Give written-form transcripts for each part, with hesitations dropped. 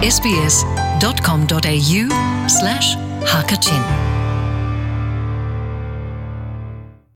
sbs.com.au slash hakachin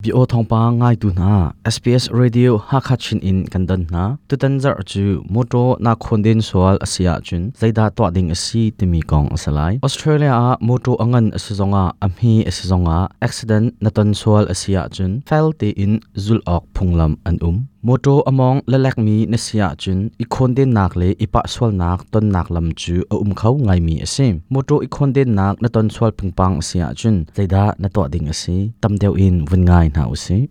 Bio thawngpang ngaitu hna SBS Radio Hakha Chin in kan don hna. Tutan zarh cu motor na khonden sual a si ahcun zeidah tuah ding a si timi kong a si lai. Australia ah motor a ngan a si zongah a hme a si zongah accident na ton sual a si ahcun fel tein zulh awk phunglam an um. Motor a mawng lalekmi na si ahcun i khawndennak le i pah sualnak tonnak lam cu a um kho ngaimi a si. Motor i khawndennak na ton sual pingpang a si ahcun zeidah na tuah ding a si? Tam deuh in vun ngai hna u sih.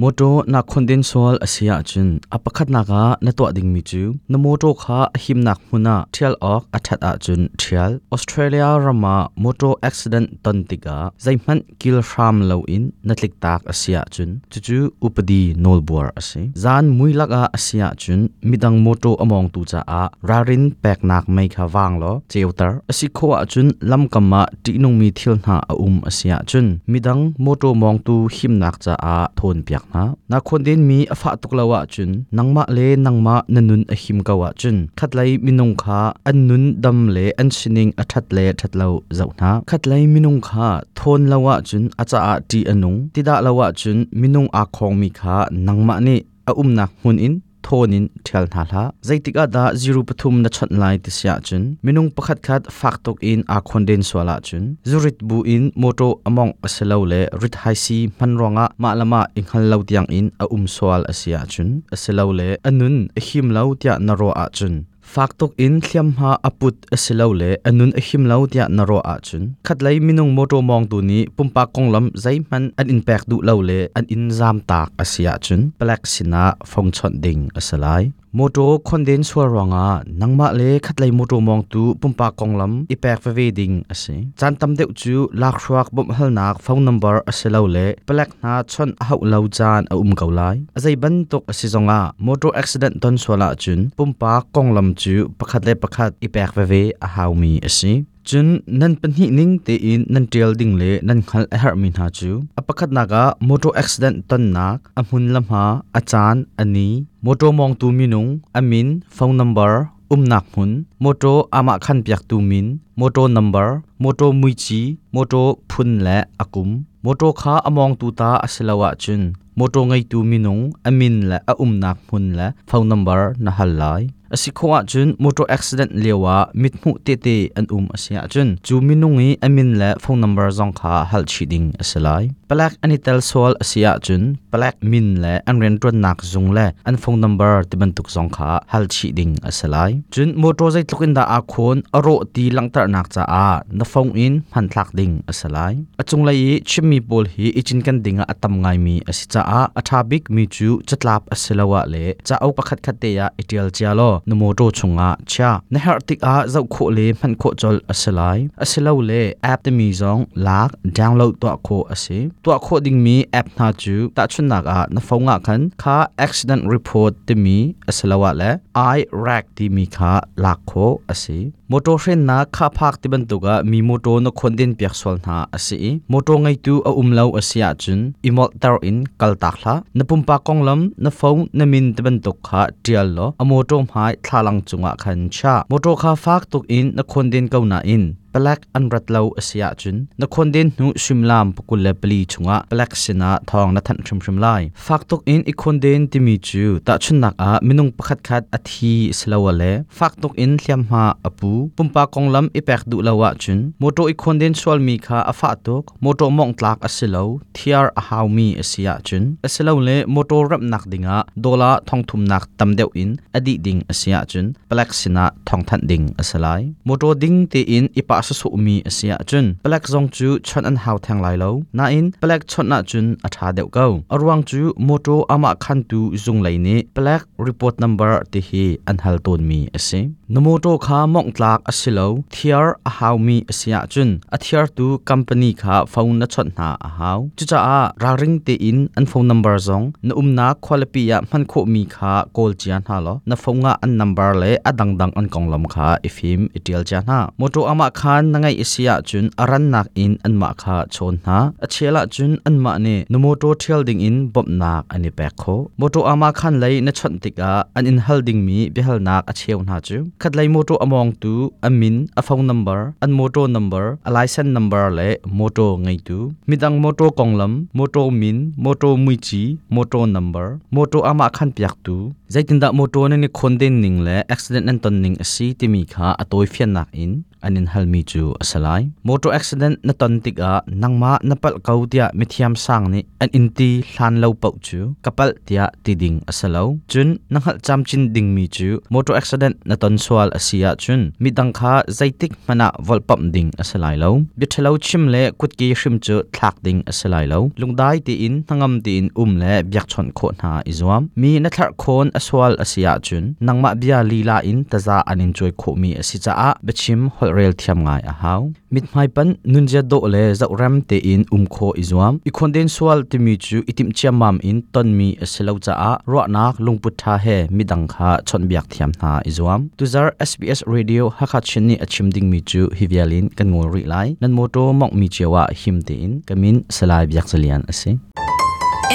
Mawṭaw naa khonden sual a si ahcun a pakhatnak ah na tuah dingmi cu na mawṭaw kha a himnak hmun ah ṭhial awk a ṭhat ahcun ṭhial. Australia ram ah mawṭaw accident ton tikah zeihmanh kil hram loin na tliktak a si ahcun cucu upadi nawlbuar a si. Zan mui lakah a si ahcun midang mawṭaw a mawngtu caah ralrin peknak mei kha vang law ceuter. A si khawh ahcun lamkam ah ṭihnungmi thil hna a um a si ahcun midang mawṭaw mawngtu himnak caah thawnpiak hna. Na khawndenmi a fah tuk lo ahcun nangmah le nangmah na nun a him ko ahcun khatlei minung kha an nun dam le an sining a ṭhat le ṭhat lo zoh hna. Khatlei minung kha thawn lo ahcun a caah ṭih a nung, ti dah lo ahcun minung aa khawngmi kha nangmah nih a umnak hmun in thawn in ṭhial hna hlah. Zeitik ah dah ziru pathum na chawnh lai ti si ahcun minung pakhatkhat fak tuk in aa khonden sual ahcun zurit bu in mawṭaw a mawngh a si lo le rithaisii hman ruangah mah le mah i hngal lo tiang in a um sual a si ahcun a si lo le a nun a him lo tiah na ruah ahcun fak tuk in hliamhma a put a si lo le a nun a him lo tiah na ruah ahcun khatlei minung mawṭaw mawngtu nih pumpak konglam zeihmanh an in pek duh lo le an in zamtak a si ahcun palek sinah fong chawnh ding a si lai. Mawṭaw khonden sual ruangah nangmah le khatlei mawṭaw mawngtu pumpak konglam i pek veve ding a si. Caan tam deuh cu lakhruak bawmhhalnak phone number a si lo le palek hna chawnh a hauh lo caan a um ko lai. A zei bantuk a si zongah motor accident ton sual ahcun pumpak konglam cu pakhat le pakhat i pek veve a haumi a si. Cun nan pahnih ning tein nan ṭial ding le nan hngalh a herhmi hna cu a pakhatnak ah motor accident tonnak, a hmun le hma, a caan, a ni, motor mawngtu minung, a min, phone number, umnak hmun, motor amah khan piaktu min, motor number, motor muici, motor phun le a kum, Mawṭaw kha a mawngtu ta a si lo ahcun mawṭaw ngeitu minung a min le a umnak hmun le phone number na hal lai. A si khawh ahcun motor accident lioah mithmuh tehte an um a si ahcun cu minung i a min le phone number zong kha hal chih ding a si lai. Palek an i tel sual a si ahcun palek min le an rianṭuannak zung le an phone number tibantuk zong kha hal chih ding a si lai. Cun mawṭaw zeitluk in dah aa khawn a rawh ti langhternak caah na phone in hmanthlak ding a si lai. A cunglei i chimmi pawl hi i cinken dingah a tam ngaimi a si caah a ṭha bikmi cu catlap a si lo ah le cauk pakhatkhat te ah i ṭial cia law na mawṭaw chungah chia. Na herh tikah zoh khawh le hman khawh colh a si lai. Asilole app timi zong lak, download tuah khawh a si. Tuah khawh dingmi app hna cu tahchunhnak ah na phone ah khan kha accident report timi asiloah le iRack timi kha lak khawh a si. Motor hrennak khaphak ti bantuk ah mi motor na khonden piak sual hna a si i motor ngeitu a um lo a si ahcun i molhter in kaltak hlah. Na pumpak konglam, na phone, na min ti bantuk kha ṭial law a motor hmai thlalang cungah khan chia. Motor kha fak tuk in na khonden ko nain palek an rat lo a si ahcun na khonden hnu suimilam 24 chungah palek sinah thawng na thanh hrimhrim lai. Fak tuk in i khonden timi cu tahchunhnak ah minung pakhatkhat a thi silole fak tuk in hliamhma a pu. Pumpak konglam i pek duh lo ahcun mawṭaw i khonden sualmi kha a fah tuk, mawṭaw mawngh tlak a si lo, thiar a haumi a si ahcun asilole mawṭaw remhnak dingah dollar thongthumnak tam deuh in a dih ding a si ahcun palek sinah thawngthanh ding a si lai. Mawṭaw ding tein i pah sawsawhmi a si ahcun palek zong cu chawnh an hau theng lai lo. Nain palek chawnh ahcun a ṭha deuh ko. A ruang cu mawṭaw amah khantu zung lei nih palek report number ti hi hi an hal tawnmi a si. Na mawṭaw kha mawngh tlak a si lo, thiar a haumi a si ahcun a thiartu company kha phone na chawnh hna a hau. Cucaah ralring tein an phone number zong na umnak khualipi ah hman khawhmi kha kawl cia hna law na phone ah an number le a dangdang an konglam kha i fim i ṭial cia hna. Mawṭaw amah khan na ngeih a si ahcun a rannak in anmah kha chawn hna. A chel ahcun anmah nih na mawṭaw ṭhial dingin bawmhnak an i pek khawh. Mawṭaw amah khan lei na chawnh tikah an in hal dingmi biahalnak a cheu hna cu khatlei mawṭaw a mawngtu a min, a phone number, an mawṭaw number, a license number le mawṭaw ngeitu, midang mawṭaw konglam, mawṭaw min, mawṭaw muici, mawṭaw number, mawṭaw amah khan piaktu, zeitindah mawṭaw nan i khawnden ning le accident nan ton ning a si timi kha a tawifiannak in an in halmi cu a si lai. Motor accident na ton tikah nangmah na palh ko tiah mithiam sang nih an in ti hlan lo paoh cu ka palh tiah ti ding a si lo. Cun na hngalh camcin dingmi cu motor accident na ton sual a si ahcun midang kha zeitik hmanh ah volhpamh ding a si lai lo. Biaṭhalo chim le kutke hrim cu thlak ding a si lai lo. Lungdai tein hnangam tein um le biakchawnh khawh hna i zuam. Mi na thlarh khawn a sual a si ahcun nangmah bia lila in taza an in cuai khawhmi a si caah biachim holhrel thiam ngai a hau. Mithmai panh nunzia dawh le zohrem tein um khawh i zuam. I khawnden sual timi cu i timh ciammam in tonmi a si lo caah ruahnak lungput ṭha he midang kha chawnhbiak thiam hna i zuam. Tuzar SBS Radio Hakha Chin nih a chim dingmi cu hi vial in kan ngol rih lai. Nan mawṭaw mawnghmi cio ah him tein ka min Salai Biak Zalian a si.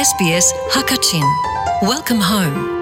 SBS Hakachin. Welcome home.